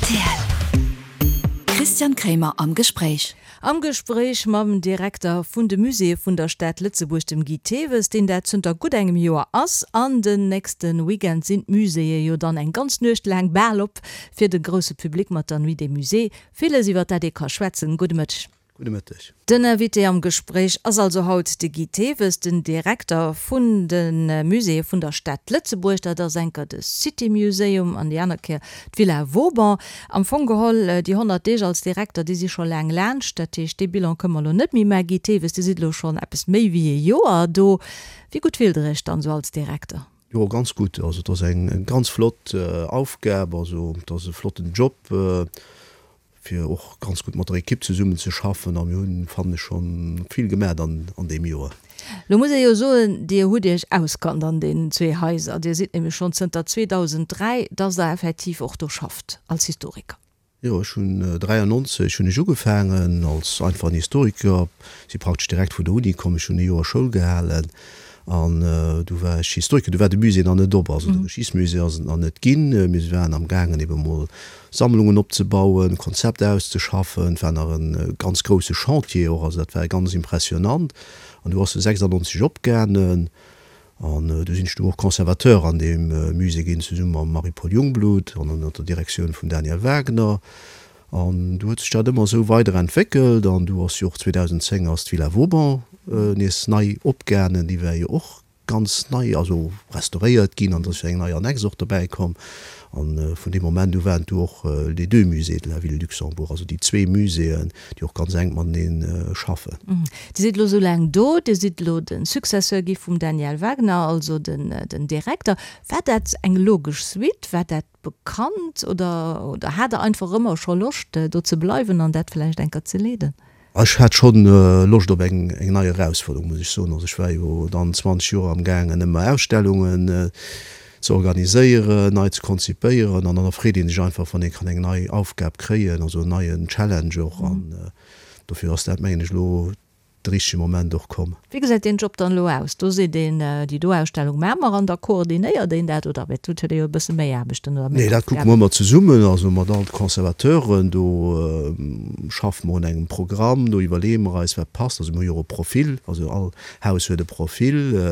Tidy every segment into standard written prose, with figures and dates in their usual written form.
Rtl. Christian Kremer am Gespréich. Am Gespréich mam Direkter vun de Muséeë vun der Stad Lëtzebuerg, dem Guy Thewes, deen dat zënter gutt engem Joer ass. An den nächste Weekend sinn d'Muséeë jo dann eng ganz Nuecht laang bal op fir de grousse Public mat der Nuit des Musées. Villes iwwer dat ee ka schwätzen. Gudde Mëtteg. Gudde Mëtteg. Den Invité am Gespréich ass also haut de Guy Thewes, den Direkter vun de Muséeë vun der Stad Lëtzebuerg. Dat ass enker de City Museum an déi aner Kéier d'Villa Vauban. Am Fong geholl, déi 100 Deeg als Direkter, déi si scho laang laanscht. Dat heescht, dee Bilan kënne mer elo net méi maachen. Guy Thewes, Dir sidd elo schonn eppes méi wéi ee Joer do. Wéi gutt fillt Der Iech dann esou als Direkter? Jo, ganz gutt. Also et ass eng ganz flott Aufgab, also et ass e flotten Job. fir och ganz gutt mat der Ekipp zesummen ze schaffen a mir hunn, fannen ech, schonn vill gemat an an deem Joer. Lo muss ee jo soen, Dir hutt Iech auskannt an deenen zwee Haiser. Dir sidd nämlech schonn zënter 2003, dass Der effektiv och do schafft als Historiker. Jo, ech hunn 93 hunn ech ugefaangen als einfachen Historiker, si praktesch direkt vun der Uni komm, ech hunn e Joer Schoul gehalen An du war ech Historiker, du war de Musée nach net op, also de Geschichtsmusée ass et nach net ginn. Mir waren am gaangen ebe mol Sammlungen opzebauen, Konzept auszeschaffen. Et war nach e ganz grousse Chantier och, also dat war ganz impressionant. An du ass e 96 opgaangen an du sinn ech du och Conservateur an deem Musée ginn, zesumme mam Marie-Paule Jungblut an ënner der Direktioun vum Daniel Wagner. An du huet sech dat ëmmer esou weider entwéckelt an du ass jo och 2010 ass d'Villa Vauban nees nei opgaangen, déi war jo och ganz nei, also restauréiert ginn an et ass jo eng nei Annexe och dobäi komm. An vun deem Moment u waren et du och les deux musées de la ville Luxembourg, also déi zwee Muséeën, déi och ganz enk matenee schaffen. Dir sidd elo esou laang do, Dir sidd elo de Successeur gi vum Daniel Wagner, also den Direkter. War dat eng logesch Suite? War dat Bekannt oder oder hat der einfach ëmmer scho Loscht do ze bleiwen an dat vläicht enker ze leeden? Ech hat schonn Loscht op eng eng nei Erausfuerderung, muss ech soen. Also ech war jo dann 20 Joer am gaangen ëmmer Ausstellungen ze organiséieren, nei ze konzipéieren an dann erfreet ee sech einfach wann ee kann eng nei Aufgab kréien, also en neien Challenge och an dofir ass dat mengen ech elo de richtege Moment och komm. Wéi gesäit deen Job dann elo aus? Do seet een, déi do Ausstellung maache mer an da koordinéiert een dat oder et huet ee jo e bësse méi Aarbechten oder méi Nee, dat kucke mer Aufgaben. ëmmer zesummen, also mat all de Conservateuren. Do schaffe mer un engem Programm, do iwwerleeë mer eis, wat passt. Also mir hu jo och e Profil, also all Haus huet e Profil.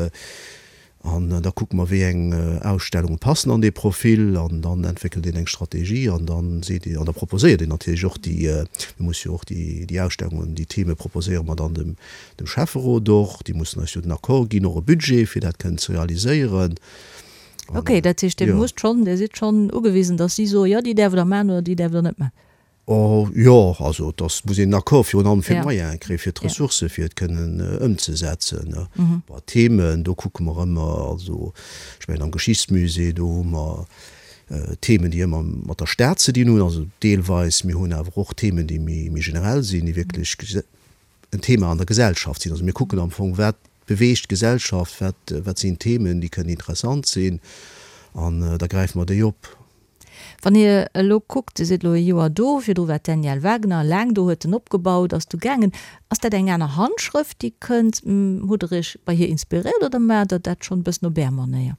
An da kucke mer, wéi eng Ausstellunge passen an dee Profil. An dann entwéckelt een eng Strategie an da seet een, an da proposéiert een natierlech och déi, mir musse jo och déi, déi Ausstellungen, déi Theme proposéiere mer dann dem, dem Schäfferot och. Déi mussen eis jo den Accord ginn, och e Budget, fir dat kënnen ze realiséieren. An, Ok, dat heescht, Dir musst schonn, Dir sidd schonn ugewisen, datt si soen, jo, déi däerft Der maachen oder déi däerft Der net maachen. Oh jo, also et ass, muss een en Accord virun allem fir d'Moyene kréien, fir d'Ressourcë fir et kënnen ëmzesetzen. Bon, d'Themen, do kucke mer ëmmer, also ech mengen am Geschichtsmusée, do hu mer Themen, déi ëmmer mat der Stad ze dinn hunn, also deelweis. Mir hunn awer och Themen, déi méi generell sinn, déi wierklech en Thema an der Gesellschaft sinn. Also mir kucken am Fong, wat beweegt d'Gesellschaft, wat, wat sinn Themen, déi kënnen interessant sinn, an da gräife mer déi op. Wann Dir elo kuckt, Dir sidd elo e Joer do, virdru war d'Danièle Wagner laang do, huet en opgebaut, ass du gaangen. Ass dat eng aner Handschrëft, déi kënnt? Hutt Der Iech bei hir inspiréiert oder maacht Der dat schonn e bëssen op Är Manéier?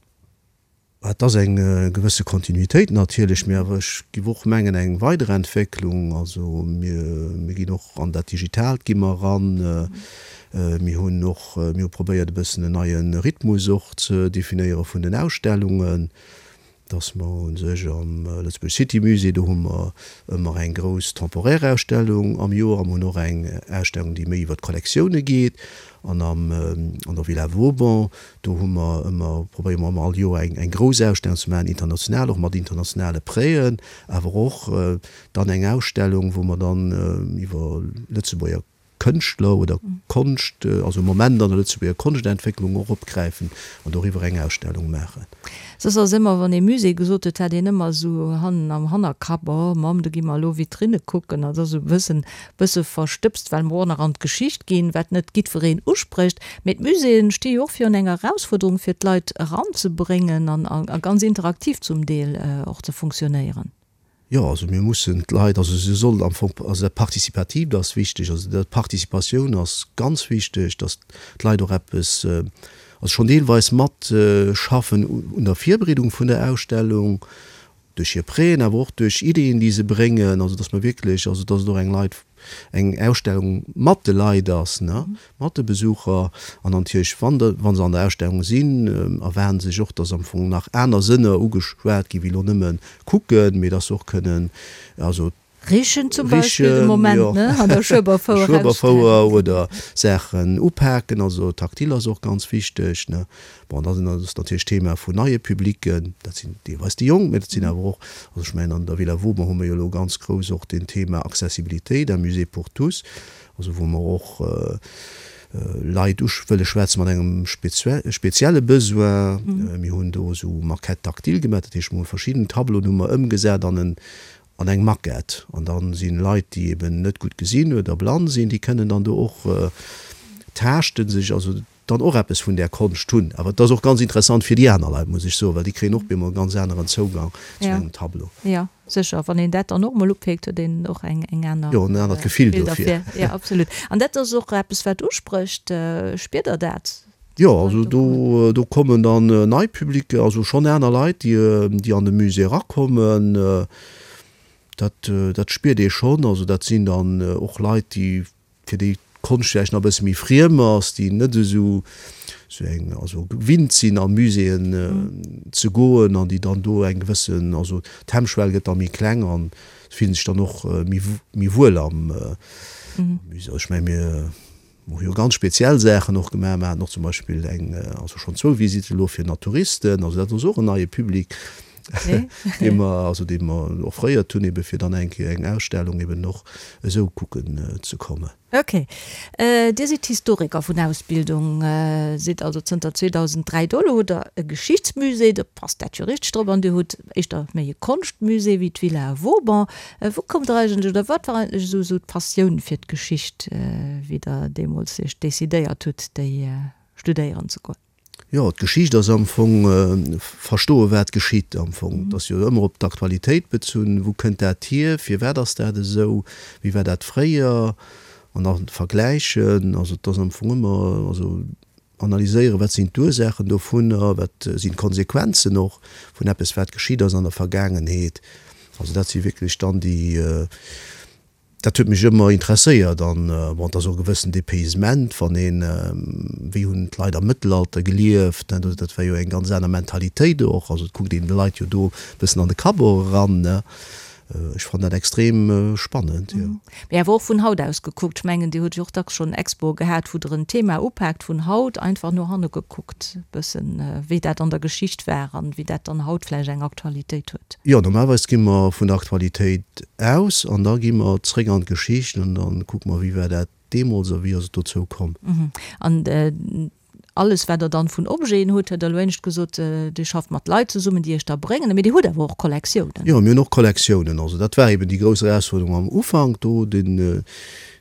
Et ass eng gewësse Kontinuitéit natierlech, mee awer ech giff och mengen eng Weiderentwécklung. Also mir, mir ginn och an dat Digitaalt gi mer eran. Mir hunn och, mir hu probéiert e bëssen en neie Rhythmus och ze definéiere vun den Ausstellungen. Dass mer u sech am Lëtzebuerg City Musée, do hu mer ëmmer eng grouss temporaire Ausstellung am Joer a mer hunn och eng Ausstellung, déi méi iwwer d'Kollektioune geet. An am, an der Villa Vauban, do hu mer ëmmer, probéiere mer ëmmer all Joer eng, eng grouss Ausstellung ze maachen, international, och mat internationale Prêten, awer och dann eng Ausstellung, wou mer dann iwwer Lëtzebuerger Kënschtler oder Konscht, also e Moment an der Lëtzebuerger Konschtentwécklung och opgräifen an doriwwer eng Ausstellung maachen. Soss ass ëmmer, wann ee Musée gesot huet, hat een ëmmer esou hannen am Hannerkapp, oh Mamm, do gi mer elo Vitrinne kucken. Dat ass esou e bëssen, bësse verstëbst, well mer och nach an d'Geschicht ginn, wat net giddwereen usprécht. Mee d'Muséeën sti jo och virun enger Erausfuerderung, fir d'Leit eranzebréngen an a ganz interaktiv zum Deel och ze funktionéieren. Jo, also mir mussen d'Leit, also se sollen am Fong, also dat Participatiivt ass wichteg, also dat d'Participatioun ass ganz wichteg, datt d'Leit och eppes, also schonn deelweis mat schaffen un der Virbereedung vun der Ausstellung. Duerch hir Prêten, awer och duerch Ideeën, déi se bréngen, also dass mer wierklech, also dass et och eng Leit, eng Ausstellung mat de Leit ass, ne, mat de Besucher. An natierlech, wann de, wa se an der Ausstellung sinn, erwaarden se sech och, dass am Fong nach aner Sënner ugeschwat ginn, wéi elo nëmme kucken, mee dass se och kënnen, also Richen zum Beispill de Moment, ne, an der Schueberfouer. Schueberfouer oder Saachen upaken, also taktil ass och ganz wichteg, ne. Bon, da sinn ass natierlech d'Thema vun neie Publicken, dat sinn deelweis déi Jonk, mä dat sinn awer och, also ech mengen an der Villa Vauban hu mer jo elo ganz grouss och den Thema Accessibilité, un musée pour tous, also wou mer och Leit u wëlle schwätze mat engem spezielle Besoin. Mir hunn do esou Maquettes tactiles gemaach, dat heescht mer hu verschidden Tableauen hu mer ëmgesat an en an eng Maquette an dann sinn Leit déi eben net gutt gesinn oder blann sinn, déi kënnen dann do och taaschten, sech also dann och eppes vun där Konscht hunn. Awer et ass och ganz interessant fir déi aner Leit, muss ech soen, well déi kréien och bemol e ganz aneren Zougang zu engem Tableau. Jo, sécher, wann een dat dann och emol upéckt, huet een och eng eng aner. Jo, en anert Gefill dofir. Jo, absolut. An dat ass och eppes wat usprécht. Spiert Der dat? Jo, also do do kommen dann nei Publicen, also schonn aner Leit, déi déi an de Musée erakommen. Dat dat spiert ee schonn. Also dat sinn dann och Leit, déi fir déi d'Konscht vläicht nach e bësse méi friem ass, déi net esou esou eng also gewinnt sinn a Muséeën ze goen an déi dann do eng gewëssen also d'Hemmschwell gëtt da méi kleng an se fillen sech dann och méi méi wuel am Musée. Also ech menge mir Mer hu jo ganz speziell Saachen och gemaach. Mer haten och zum Beispill eng, also schonn zwou Visitten elo fir Naturisten. Also dat ass och en neie Public, dee mer, also dee mer offréiert hunn, ebe fir dann eng Kéier eng Ausstellung eben och esou kucken ze kommen. Ok. Dir sidd Historiker vun Ausbildung, sidd also zënter 2003 do. Elo hutt Der e Geschichtsmusée, do passt dat jo richteg drop. An Dir hutt éischter méi e Konschtmusée wéi d'Villa Vauban. Wou kommt der eigentlech, oder wat war eigentlech esou esou d'Passioun fir d'Geschicht, wéi der deemools iech decidéiert hutt, déi studéieren ze goen? Jo, d'Geschicht ass am Fong verstoe wat geschitt am Fong. Et ass jo ëmmer op d'Aktualitéit bezunn, wou kënnt dat hier, firwat ass dat esou, wéi war dat fréier an da vergläichen. Also et ass am Fong ëmmer, also Analyséieren, wat sinn d'Ursaachen dovunner, wat sinn d'Konsequenzen och vun eppes, wat geschitt ass an der Vergaangenheet. Also dat si wierklech dann déi, dat huet mech ëmmer interesséiert. An bon, et ass och e gewëssen Dépaysement, wann een, wéi hunn d'Leit am Mëttelalter gelieft, ne, dat war jo eng ganz aner Mentalitéit och. Also et kuckt een de Leit jo do e bëssen an de Kapp och eran, ne. Ech fannen dat extrem spannend, jo. Mee awer och vun haut aus gekuckt. Ech mengen, Dir hutt jo och dacks schonn Expoe gehat, wou Der en Thema upaakt, vun haut einfach no hanne gekuckt, e bëssen, wéi dat an der Geschicht war an wéi dat dann haut vläicht eng Aktualitéit huet. Jo, normalerweis gi mer vun der Aktualitéit aus an da gi mer zréck an d'Geschicht an da kucke mer, wéi war dat deemools a wéi ass et dozou komm. An alles wat der dann vun Objeten hutt, huet Der elo éinescht gesot, Dir schafft mat Leit zesummen, déi Iech da bréngen, mee Dir hutt awer och Kollektiounen. Jo, mir hunn och Kollektiounen. Also dat war eben déi grouss Erausfuerderung am Ufank do, den,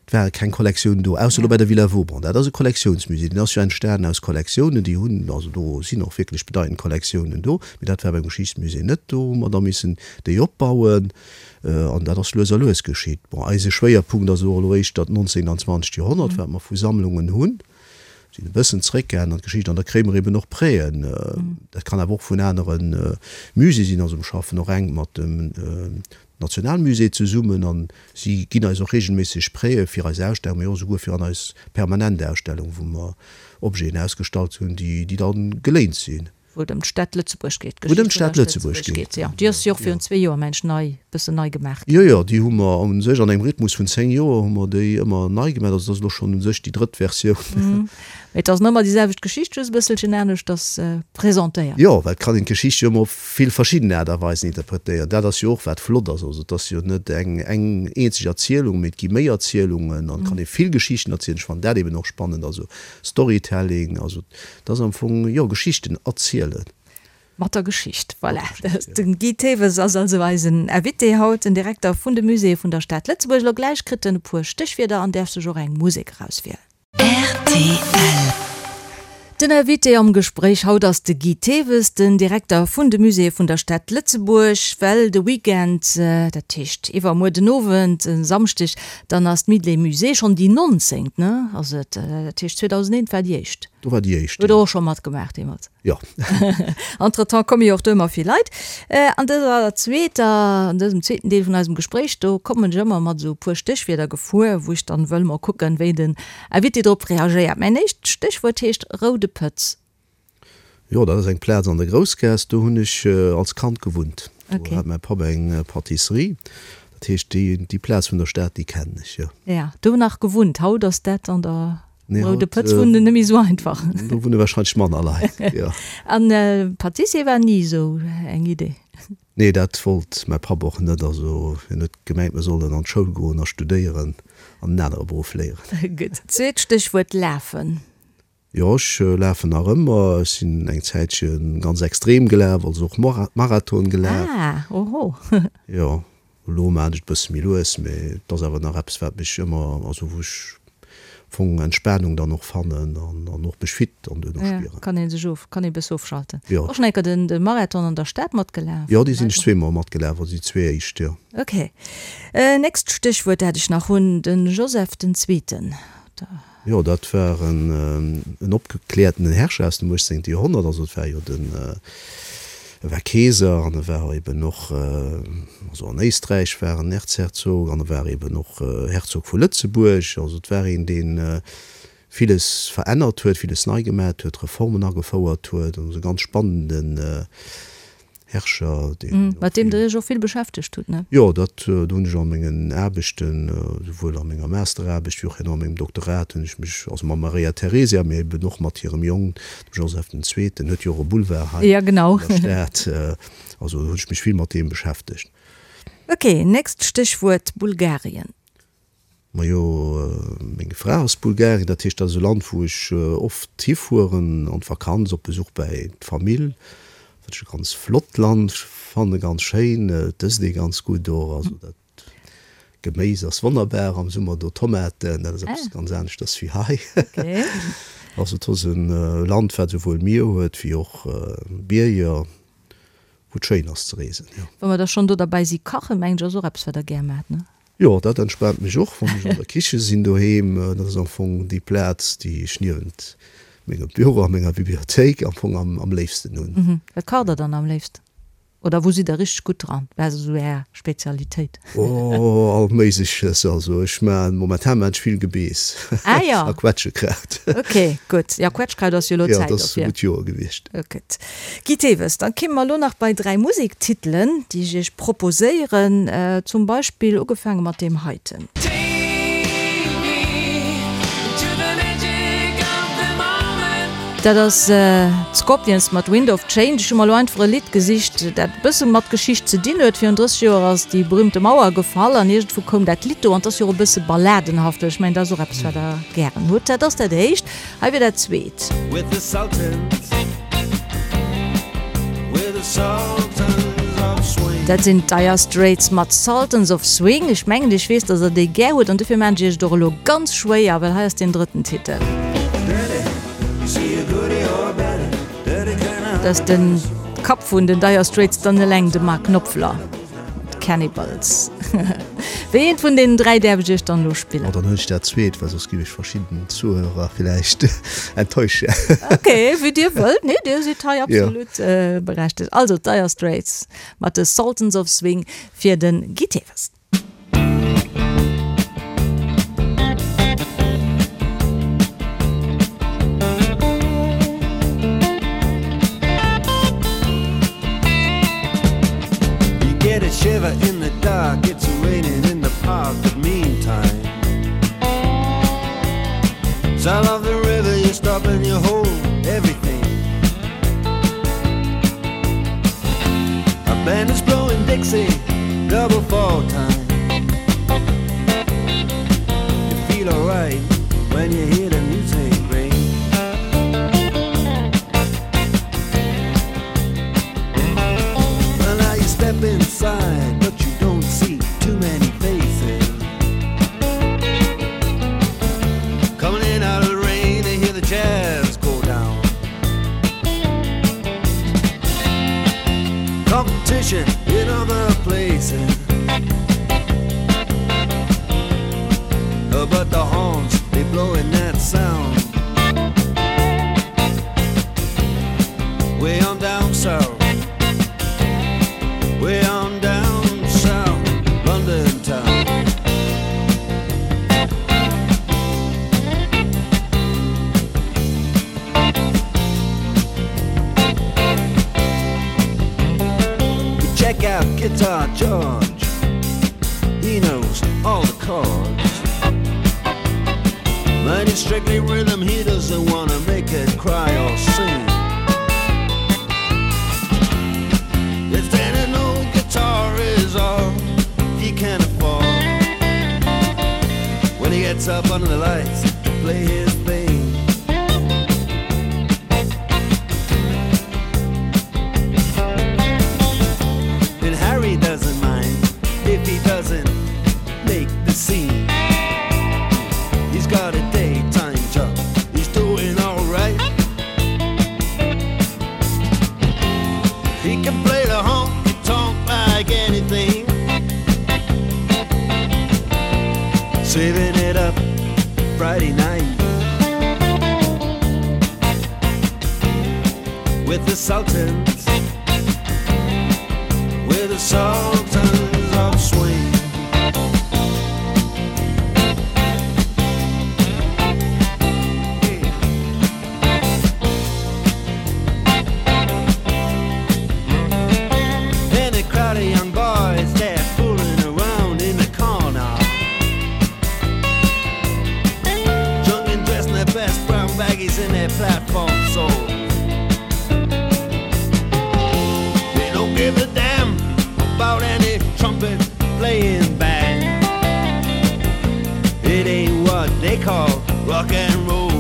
et ware keng Kollektiounen do, ausser elo bei der Villa Vauban. Dat ass e Kollektiounsmusée, deen ass jo entstanen aus Kollektiounen, déi hunn, also do sinn och wierklech bedeitend Kollektiounen do, mee dat war beim Geschichtsmusée net do, hu mer da missen déi opbauen. An dat ass lues a lues geschitt. Bon, eise Schwéierpunkt ass elo éischter d'nonzéngt an zwanzegt Joerhonnert, wat mer vu Sammlungen hunn. Sinn e bëssen zréckgaangen an d'Geschicht an da kréie mer eben och Prêten. Dat kann awer och vun anere Musée sinn. Also mer schaffen och enk mat dem Nationalmusée zesummen an si ginn eis och reegelméisseg Prêtë fir eis Ausstellung, mee och esouguer fir an eis permanent Ausstellung, wou mer Objeten ausgestallt hunn, déi da geléint sinn. Wou et ëm d'Stad Lëtzebuerg geet, Wou et ëm d'Stad Lëtzebuerg geet. Jo, déi ass jo och virun zwee Joer, mengen ech, nei, bëssen nei gemaach ginn. Jo, jo, déi hu mer u sech an engem Rhythmus vun 10 Joer hu mer déi ëmmer nei gemaach. Also dat ass elo schonn u sech déi drëtt Versioun. Mee et ass nach ëmmer déi selwecht Geschicht, just e bësselchen aneschters presentéiert. Jo, well et kann een d'Geschicht jo ëmmer op vill verschidden Aart a Weisen interpretéieren. Dat ass jo och wat flott ass. Also et ass jo net eng eng eenzeg Erzielung, mee et gi méi Erzielungen an et kann ee vill Geschichten erzielen. Ech fannen dat eben och spannend, also Storytelling, also Dat ass am Fong, jo, Geschichten erzielen. Mat der Geschicht, voilà. Den Guy Thewes ass also eisen Invité haut, den Direkter vun de Muséeë vun der Stad Lëtzebuerg. Elo gläich kritt en e puer Stéchwierder an däerf sech och eng Musek erauswielen. Rtl. Den Invité am Gespréich haut ass de Guy Thewes, den Direkter vun de Muséeë vun der Stad Lëtzebuerg. Well de Weekend, dat heescht iwwermuer den Owend, e Samschdeg, dann ass d'Nuit des Musées, schonn déi nonzéngt, ne, ass et? Dat heescht 2001 war déi éischt. Do war déi éischt, jo. Huet Der och scho matgemaach deemools? Jo. Entretemps komme jo och do ëmmer vill Leit. An dëser zweeter, an dësem zweeten Deel vun eisem Gespréich, do kommen ech ëmmer mat esou e puer Stéchwierder gefuer, wou ech dann wëll mol kucken, wéi den Invité drop reagéiert. Mäin éischt Stéchwuert heescht Roude Pëtz. Jo, dat ass eng Plaz an der Groussgaass, do hunn ech als Kand gewunnt. Do hat mäi Papp eng Pâtisserie. Dat heescht, déi, déi Plaz vun der Stad, déi kennen ech, jo. Ja, do nach gewunnt. Haut ass dat an der Nee, Roude Pëtz wunnen net méi esou einfach. Do wunne wahrscheinlech manner Leit, jo. An Pâtissier war ni esou eng Idee? Nee, dat wollt mäi Papp och net. Also hien huet gemengt, mir sollen an d'Schoul goen a studéieren an en anere Beruff léieren. Gutt. Zweet Stéchwuert, Lafen. Jo, ech lafen nach ëmmer. Ech sinn eng Zäitche ganz extrem gelaf, also och Marathon gelaf. Ah, oho. Jo, Elo maan ech et bësse méi lues, mee et ass awer nach eppes wat mech ëmmer, also wou ech am Fong Entspanung dann och fannen an an och mech fit dann duerno spieren. Ja, kann een sech of, kann ee bësse ofschalten. Jo. Och schon eng Kéier den de Marathon an der Stad matgelaf? Jo, dee sinn ech zweemol matgelaf, also déi zwee éischt, jo. Ok. Nächst Stéchwuert dat ech nach hunn, den Joseph den Zweeten. Da. Jo, dat war en opgekläertenen Herrscher aus dem 18. Joerhonnert. Also et war jo den, e war Keeser an e war eben och, also an Éisträich war en Erzherzog an e war eben och Herzog vu Lëtzebuerg. Also et war een, dee villes verännert huet, villes nei gemat huet, Reformen agefouert huet. Also e ganz spannenden Herrscher, deen och Mat deem Der Iech och vill beschäftegt hutt, ne? Jo, dat do hunn ech a mengen Aarbechten, souwuel a menger Masteraarbecht wéi och herno a mengem Doktorat hunn ech mech, also mam Maria Theresia, mee eben och mat hirem Jong, dem Joseph den Zweeten, huet jo och e Boulevard hei Ja, genau. an der Stad, also hunn ech mech vill mat deem beschäftegt. Ok, nächst Stéchwuert, Bulgarien. Majo, meng Fra ass Bulgarin, dat heescht, dat ass e Land, wou ech oft hifueren an d'Vakanz, op Besuch bäi d'Famill, wat ech e ganz flott Land fannen, ganz schéin. Et ësst ee ganz gutt och, also dat Geméis ass wonnerbar am Summer do, Tomaten, dat ass eppes ganz aneschters wéi hei. Also et ass e Land, wat esouwuel Mier huet wéi och Bierger. Wou et schéin ass ze reesen, jo. Wa mer da schonn do derbäi si, kachen, mengen ech, ass och eppes, wat Der gär maacht, ne? Jo, dat entspaant mech och, wann ech an der Kiche sinn doheem. Dat ass am Fong déi Plaz, déi ech niewent mengem Büro a menger Bibliothéik am Fong am léifsten hunn. Wat kacht Der dann am léifsten? Oder wou sidd Der richteg gutt dran? Wat ass esou Är Spezialitéit? Oh, all Méigleches. Also ech maan, momentan maan ech vill Gebeess ah, ja. a Quetschekraut. Ok, gutt. Ja, Quetschkraut ass jo elo Zäit dofir. Ja, dat ass e gutt Joer gewiescht. Gutt. Guy Thewes, dann kéime mer elo nach bei 3 Musektitelen, déi ech Iech proposéieren. Zum Beispill ugefaange mat deem heiten. Dat ass d'Scorpions mat Wind of Change. Ech hu mer elo einfach e Lidd gesicht, dat e bësse mat Geschicht ze dinn huet. Virun 30 Joer ass déi berühmte Mauer gefall an iergendwou koum dat Lidd do an 't ass jo och e bësse balladenhaft. Ech mengen, dat ass och eppes, wat Der gären hutt. Dat ass dat éischt. Hei wier dat zweet. Dat sinn d'Dire Straits mat Sultans of Swing. Ech mengen, ech weess, dass Der déi gär hutt an dofir maachen ech Iech et och elo ganz schwéier, well hei ass deen drëtten Titel. Dat ass de Kapp vun den Dire Straits dann eleng, de Mark Knopfler mat Cannibals. Wéi eent vun deenen 3 däerf ech iech dann elo spillen? Oh, dann huelen ech dat zweet, well soss giff ech verschidden Zuhörer villäicht enttäuschen. Ok, wéi dir wëllt. Nee, dir sidd hei absolut berechtegt. Also d'Dire Straits mat de Sultans of Swing fir de Guy Thewes. Guitar George, he knows all the chords. But it's strictly rhythm, he doesn't wanna make it cry or sing. If then an old guitar is all he can afford. When he gets up under the lights to play his thing. And Harry doesn't mind if he doesn't make the scene. He's got a daytime job, he's doing alright. He can play the honky tonk like anything. Saving it up Friday night with the Sultans, with the Sultans of Swing. And a crowd of young boys, they're fooling around in the corner. Drunk and dressed in their best brown baggies and their platform soles. They don't give a damn about any trumpet playing band. It ain't what they call rock and roll.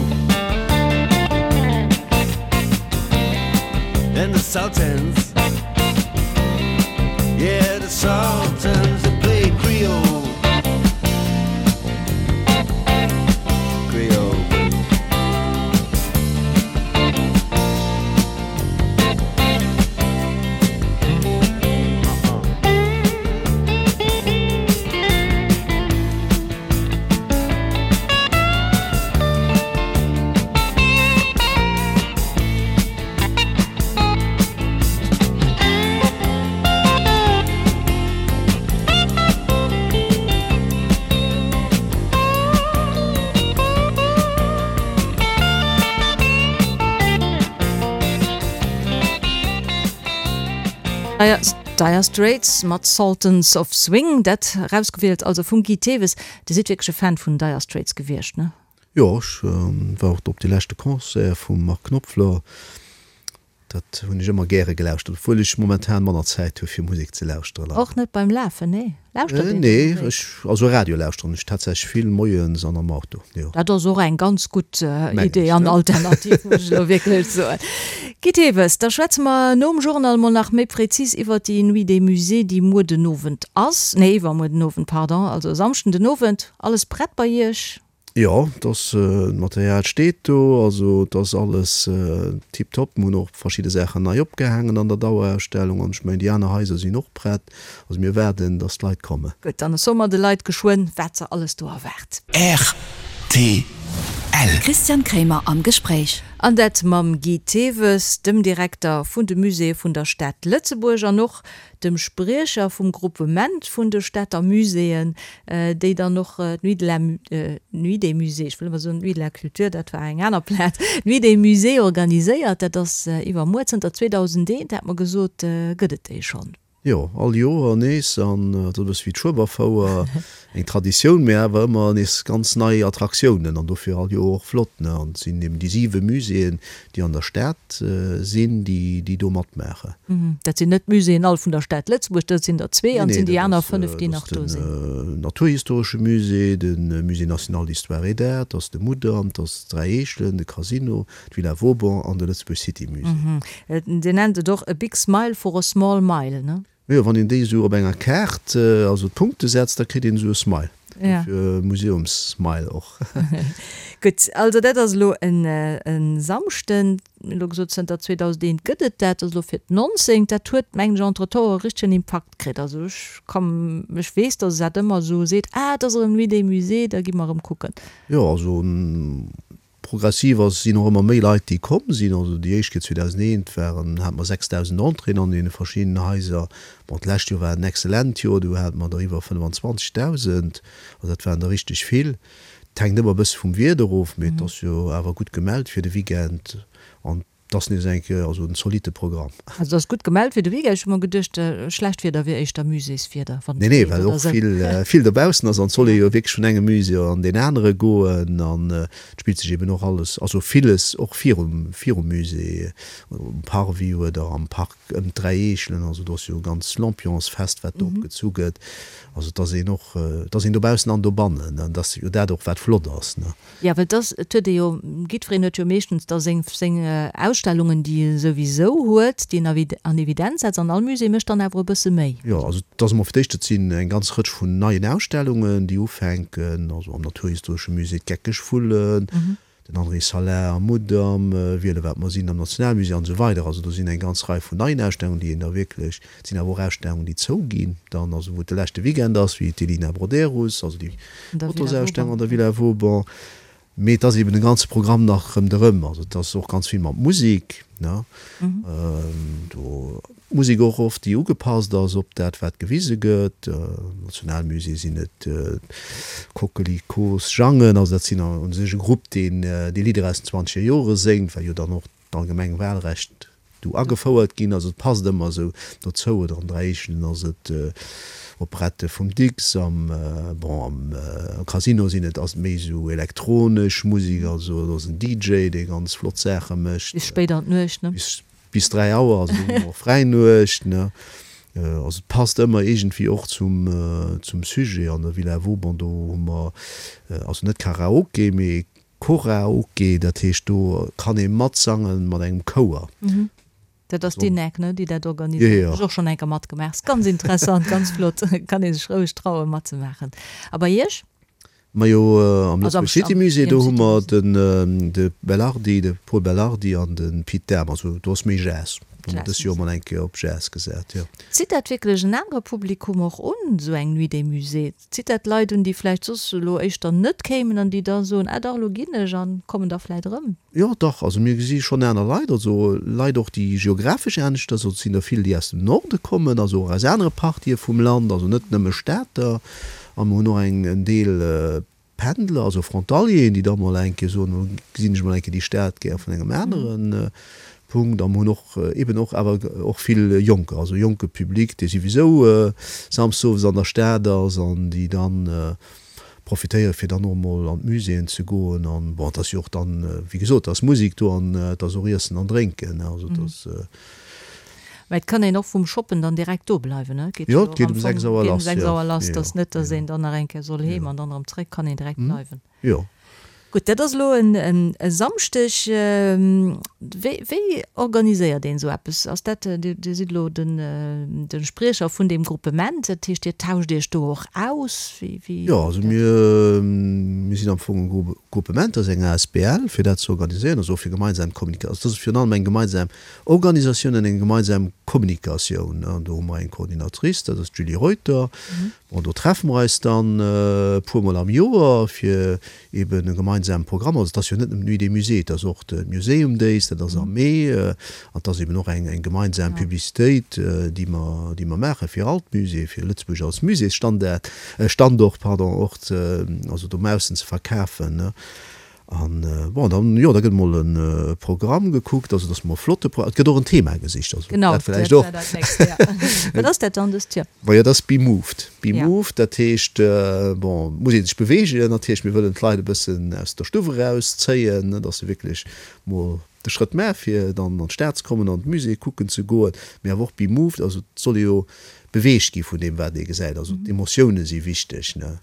And the Sultans, yeah, the Sultans that play Creole. Creole. Dire Straits mat Sultans of Swing, dat erausgewielt also vum Guy Thewes. Dir sidd wierklech e Fan vun Dire Straits gewiescht, ne? Jo, ech war och op dee leschte Concert vum Mark Knopfler. Dat hunn ech ëmmer gäre gelauschtert, obwuel ech momentan manner Zäit hu fir Musek ze lauschteren. Och net beim Lafen, nee? Lauschtert een Nee, ech, also Radio lauschteren ech tatsächlech vill moies an am Auto, jo. Dat ass och eng ganz gutt Idee an Alternativ, muss ech elo wierklech soen. Guy Thewes, da schwätze mer nom Journal mol nach méi präzis iwwert déi Nuit des Musées, déi muer den Owend ass, nee iwwermuer den Owend, pardon, also e Samschden den Owend. Alles prett bei Iech? Jo, et ass, d'Material steet do, also et ass alles tiptop. Mir hunn och verschidde Saachen nei opgehaangen an der Dauerausstellung an ech mengen déi aner Haiser sinn och prett. Also mir waarden, datt d'Leit kommen. Gutt, dann soe mer de Leit geschwënn, wat se alles do erwaart. Rtl. Christian Kremer am Gespréich. An dat mam Guy Thewes, dem Direkter vun de Muséeë vun der Stad Lëtzebuerg an och dem Spriecher vum Groupement vun de Stater Muséeën, déi dann och d'Nuit de la, Nuit des Musées, ech wëll ëmmer soen d'Nuit de la Culture, dat war eng aner Plaz, d'Nuit des Musées organiséiert. Dat ass iwwermuer. Zënter 2001, hat mer gesot, gëtt et déi schonn. Jo, all Joer nees. An dat ass e bësse wéi d'Schueberfouer, eng Traditioun, mee awer ëmmer nees ganz nei Attraktiounen an dofir all Joer och flott. An et sinn eben déi siwe Muséeën, déi an der Stad sinn, déi do matmaachen. Dat sinn net d'Muséeën all vun der Stad Lëtzebuerg, dat sinn der zwee an et sinn déi aner fënnef, déi nach do sinn. Dat ass den Naturhistoresche Musée, de Musée national d'histoire et d'art, dat ass de Mudam, dat ass d'Dräi Eechelen, de Casino, d'Villa Vauban an de Lëtzebuerg City Musée. Dir nennt et och a big smile for a small mile, ne? Jo, wann een déi esou op enger Kaart, also d'Punkte setzt, da kritt een esou e Smile. Dofir Museumssmile och. Gutt, also dat ass elo en Samschden. Mir hunn elo gesot, zënter 2001 gëtt et dat, dat ass elo fir d'nonzéngt. Dat huet, mengen ech, entretemps e richtegen Impakt kritt. Also ech ka, ech weess, datt e dat ëmmer esou seet, Ah, et ass erëm Nuit des Musées, da gi mer erëm kucken. Jo, also Progressiv ass, sinn och ëmmer méi Leit déi komm sinn. Also déi éischt Kéier 2001 waren, hate mer 6.000 Entréeën an deene verschiddenen Haiser. Bon, d'lescht Joer war en excellent Joer, do hate mer der iwwer 25.000, also dat waren der richteg vill. Et hänkt ëmmer e bësse vum Wieder of, mee et ass jo awer gutt gemellt fir de Weekend an. Et ass nees eng Kéier also en zolitte Programm. Also et ass gutt gemellt fir de Weekend. Ech hu mer geduecht, schlecht Wieder wier éischter Muséeswieder, wann et Nee, nee, reent well oder och esou. vill, vill dobaussen ass an et soll ee jo wierklech vun engem Musée an deen anere goen an et spillt sech eben och alles, also villes och virum, virum Musée, um Parvis oder am Park ëm d'Dräi Eechelen. Also do ass jo e ganz Lampionsfest, wat do opgezu gëtt. Also et ass een och, et ass een dobaussen an dobannen an et ass jo dat och, wat flott ass, ne. Jo, well et ass, et huet ee jo, jiddwereen huet jo meeschtens da seng, seng Ausstellungen, déi e souwisou huet, déi en an Evidenz setzt, an all Musée mécht dann awer e bësse méi. Jo, also et ass emol fir d'éischt, et sinn eng ganz Rëtsch vun neien Ausstellungen, déi ufänken, also am Naturhistoresche Musée d'Geckeg Vullen, den André Salin am Mudam, Wiele wat mer sinn am Nationalmusée an esou weider. Also do sinn eng ganz Rei vun neien Ausstellungen, déi een da wierklech, et sinn awer och Ausstellungen, déi zouginn dann, also wou et de leschte Weekend ass, wéi d'Elina Broderus, also déi Fotosausstellung an der Villa Vauban. Mee et ass eben de ganze Programm nach rëmderëm. Also et ass och ganz vill mat Musek, ne? Do Musek och oft, déi ugepasst ass op dat, wat gewise gëtt. Am Nationalmusée sinn et d'Coquelicots Jangen, also dat sinn u sech e Grupp, deen déi Lidder aus den zwanzeger Jore séngt, well jo dann och d'allgemeng Wahlrecht do agefouert ginn. Also et passt ëmmer esou dozou. Oder an Dräi Eechelen ass et Operette vum Dicks, am, bon, am Casino sinn et, ass et méi esou elektronesch Musek, also do ass en DJ, dee ganz flott Saache mécht. Bis spéit an d'Nuecht, ne? Bis, bis 3 Auer, also do hu mer och Fräinuecht, ne? Also et passt ëmmer iergendwéi och zum, zum Sujet. An der Villa Vauban, do hu mer, also net Karaoke, mee Choraoke, dat heescht do kann ee matsangen mat engem Chouer. Dat ass d'INEC, ne, déi dat organiséiert. Hu ech och schonn eng Kéier matgemaach. Ass ganz interessant, ganz flott. Kann ee sech roueg trauen matzemaachen. A bei Iech? Majo, am Lëtzebuerg City Musée, do hu mer den de Belardi, de Pol Belardi an de Pit Dahm. Also do ass méi Jazz. Do hu mer dës Joer mol eng Kéier op Jazz gesat, jo. Zitt dat wierklech en anere Publikum och un, esou eng Nuit des Musées? Zitt dat Leit un, déi vläicht soss elo éischter net kéimen an déi da soen, ah dach, elo ginn ech an kommen da vläicht erëm? Jo, dach. Also mir gesi schonn aner Leit, also Leit och, déi geographesch aneschters, also et sinn der vill, déi aus dem Norde kommen, also och aus anere Partië vum Land, also net nëmme Stater. A mir hunn och eng en Deel Pendler, also Frontalieren, déi da mol eng Kéier soen, elo gesinn ech mol eng Kéier déi Stad gär vun engem anere Punkt. A mer hunn och eben och awer och vill Jonker, also jonke Public, dee souwisou samsdes owes an der Stad ass an déi dann profitéiere fir dann och mol an d'Muséeën ze goen. An bon, et ass jo och dann, wéi gesot, et ass Musek do an et ass och Iessen an Drénken, also et ass. Mä et kann een och vum Shoppen dann direkt do bleiwen, ne? Geet jo och am Fong, geet um 6 Auer lass, dass net, dass een dann nach eng Kéier soll heem an dann erëm zréck, kann een direkt bleiwen. Jo. Gutt, dat ass elo e Samschdeg. Wéi, wéi organiséiert een esou eppes? Ass dat, Dir, Dir sidd elo den, de Spriecher vun deem Gruppement, dat heescht, Dir tauscht Iech do och aus? Wéi, wéi Jo, also mir, mir sinn am Fong e Gruppement, dat ass eng asbl, fir dat ze organiséieren, also och fir gemeinsam Kommunika-, also dat ass virun allem eng gemeinsam Organisatioun an eng gemeinsam Kommunikatioun. An do hu mer eng Coordinatrice, dat ass d'Julie Reuter. Bon, do treffe mer eis dann e puermol am Joer, fir eben e gemeinsame Programm, also et ass jo net nëmmen d'Nuit des Musées, et ass och de Museum Days, dat ass am Mee, an et ass eben och eng eng gemeinsam Publicitéit, déi mer, déi mer maache fir all d'Muséeë, fir Lëtzebuerg als Muséesstandard, Standort, pardon, och ze, also dobaussen ze verkafen. An bon, dann, jo, da gëtt mol e Programm gekuckt, also dass mer e flotte Pro-, et gëtt och en Thema gesicht, also Genau, dat vläicht och. Dat war dat nächst, ja. Wat ass dat dann dëst Joer? Majo, dat ass Be Moved. Be Moved, dat heescht, bon, et muss ee sech beweegen natierlech, mir wëllen d'Leit e bëssen aus der Stuff erauszéien, ne, dass se wierklech mol de Schrëtt maache fir dann an d'Stad ze kommen, an d'Musée kucken ze goen, mee awer och Be Moved, also et soll ee jo beweegt gi vun deem wat ee gesäit, also d'Emotioune si wichteg, ne.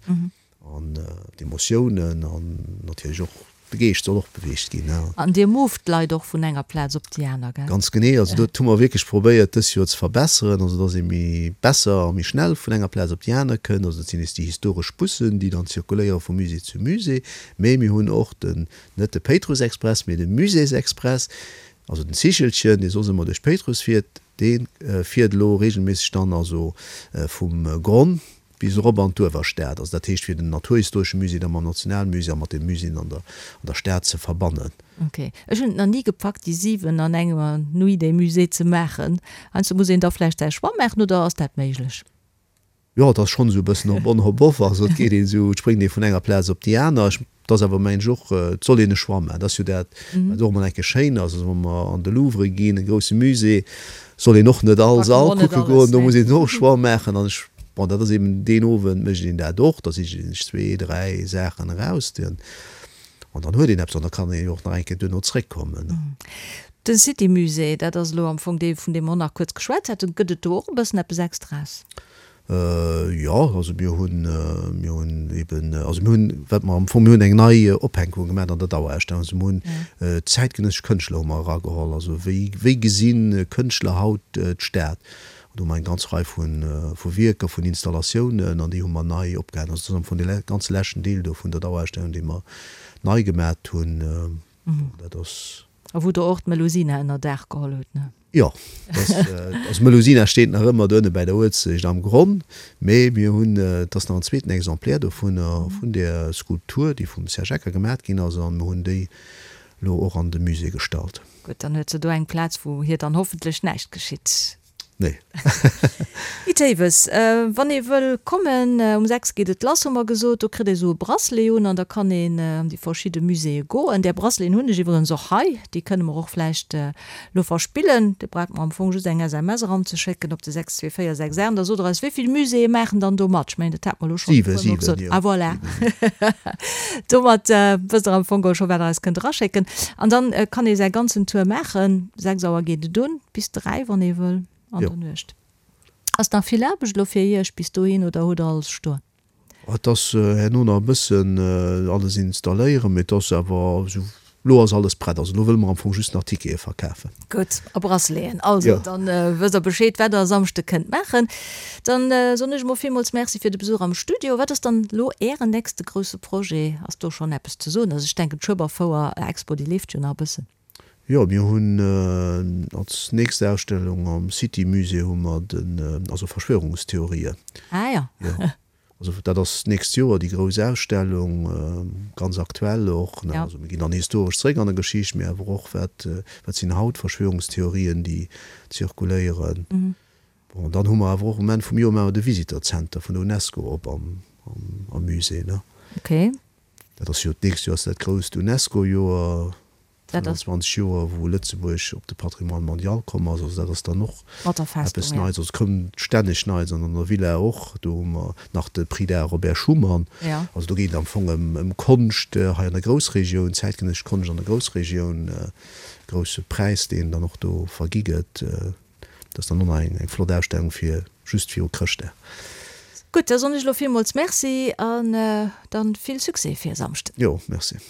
An d'Emotiounen an natierlech och de Geescht soll och beweegt ginn. An Dir moved d'Leit och vun enger Plaz op déi aner, gell? Ganz genee. Also dat hu mer wierklech probéiert dës Joer ze verbesseren, also dass ee méi besser a méi schnell vun enger Plaz op déi aner kënnt. Also dat sinn nees déi historesch Bussen, déi dann zirkuléiere vu Musée zu Musée. Mee mir hunn och den, net de Péitrussexpress, mee de Muséesexpress, also den Zichelchen, dee soss ëmmer duerch Péitruss fiert, dee fiert elo regelméisseg dann also vum Gronn bis erop an d'Uewerstad, also dat heescht fir den Naturhistoresche Musée da mam Nationalmusée a mat de Muséeën an der an der Stad ze verbannen. Ok. Ech hunn et nach ni gepackt déi 7 an enger Nuit des Musées ze maachen. Heiansdo muss een da vläicht säi Choix maachen, oder ass dat méiglech? Jo, et ass schonn esou e bëssen hop on hop off, also et geet een esou, et spréngt ee vun enger Plaz op déi aner. Ech. Et ass awer, mengen ech, och, et soll een e Choix maachen. Dat ass jo dat, wat och emol eng Kéier schéin ass. Also wa mer an de Louvre ginn, e grousse Musée, soll een och net all Sall kucke goen, do muss een och e Choix maachen. An ech, bon, dat ass eben deen Owend mécht een dat och, da sicht ee sech zwee, dräi Saachen eraus, an dann huet een eppes an da kann ee jo och nach eng Kéier duerno zréckkommen. De City Musée, dat ass elo am Fong dee vun deem mer och nach kuerz geschwat haten. Gëtt et do och e bëssen eppes Extraes? Jo, also mir hunn, mir hunn eben, also mir hunn, wat mer am Fong, mir hunn eng nei Ophänkung gemaach an der Dauerausstellung. Also mir hunn zäitgenëssesch Kënschtler hu mer erageholl. Also wéi, wéi gesi Kënschtler haut d'Stad? An do hu mer eng ganz Rei vu, vu Wierker, vun Installatiounen an déi hu mer nei opgehaangen. Also dat ass am Fong dee ganze leschten Deel do vun der Dauerausstellung, dee mer nei gemaat hunn. Bon, dat ass. A wou Der och d'Melusina ënner Daach geholl hutt, ne? Jo, also d'Melusina steet nach ëmmer do ënne bäi der Uelzecht am Gronn, mee mir hunn, et ass nach en zweeten Exemplaire dovunner, vun där Skulptur, déi vum Serge Ecker gemat ginn ass, an mir hunn déi elo och an de Musée gestallt. Gutt, dann huet se do eng Plaz, wou hir dann hoffentlech näischt geschitt. Nee. Guy Thewes, Wann ee wëll kommen, um 6 geet et lass, hu mer gesot, do kritt ee sou e Bracelet un an da kann een an déi verschidde Muséeë goen. Där Braceleten hunn ech iwwerens och hei, déi kënne mer och vläicht elo verspillen. Dir braucht mer am Fong just eng SMS eranzeschécken op de 62468 an da sot der eis, wéi vill Muséeë maachen dann do mat. Ech mengen, dat hate mer elo schonn e puer Mol gesot. Ah voilà, domat wësst der am Fong geholl scho wat der eis kënnt eraschécken. An dann kann ee säi ganzen Tour maachen. 6 Auer geet et un. Bis 3 wann ee wëll an der Nuecht. Ass nach vill Aarbecht elo fir Iech bis dohin oder hutt der alles stoen? Et ass herno nach e bëssen alles installéieren, mee et ass awer esou, elo ass alles prett. Also elo wëlle mer am Fong just nach Tickete verkafen. Gutt, a Braceleten. Also dann wësst der Bescheed wat der e Samschde kënnt maachen. Dann soen ech emol villmools Merci fir de Besuch am Studio. Wat ass dann elo Ären nächste grousse Projet? Ass do schonn eppes ze soen? Also ech denken d'Schueberfouer Expo déi leeft jo nach e bëssen. Jo, mir hunn als nächst Ausstellung am City Musée hu mer den, also Verschwörungstheorien. Ah jo. Jo, also dat ass d'nächst Joer déi grouss Ausstellung, ganz aktuell och. Ja. Also mir ginn dann historesch zréck an der Geschicht, mee awer och wat, wat sinn haut Verschwörungstheorien, déi zirkuléieren. Bon, dann hu mer awer och um Enn vum Joer maache mer de Visitor Center vun der UNESCO op am, am Musée, ne. Okay. Dat ass jo, d'nächst Joer ass dat grousst UNESCO-Joer. 25 Joer wou Lëtzebuerg op de Patrimoine mondial komm ass, also dat ass dann och eppes Neits. Also et kënnt stänneg Neits an an der Villa och, do hu mer nach de Prix d'Art Robert Schuman. Also do geet et am Fong ëm Konscht hei an der Groussregioun, zäitgenëssesch Konscht an der Groussregioun, grousse Präis deen dann och do vergi gëtt. Dat ass dann och nach eng flott Ausstellung fir just viru Chrëschtdag. Gutt, da soen ech elo villmools Merci an dann vill Succès fir e Samschden. Jo, merci.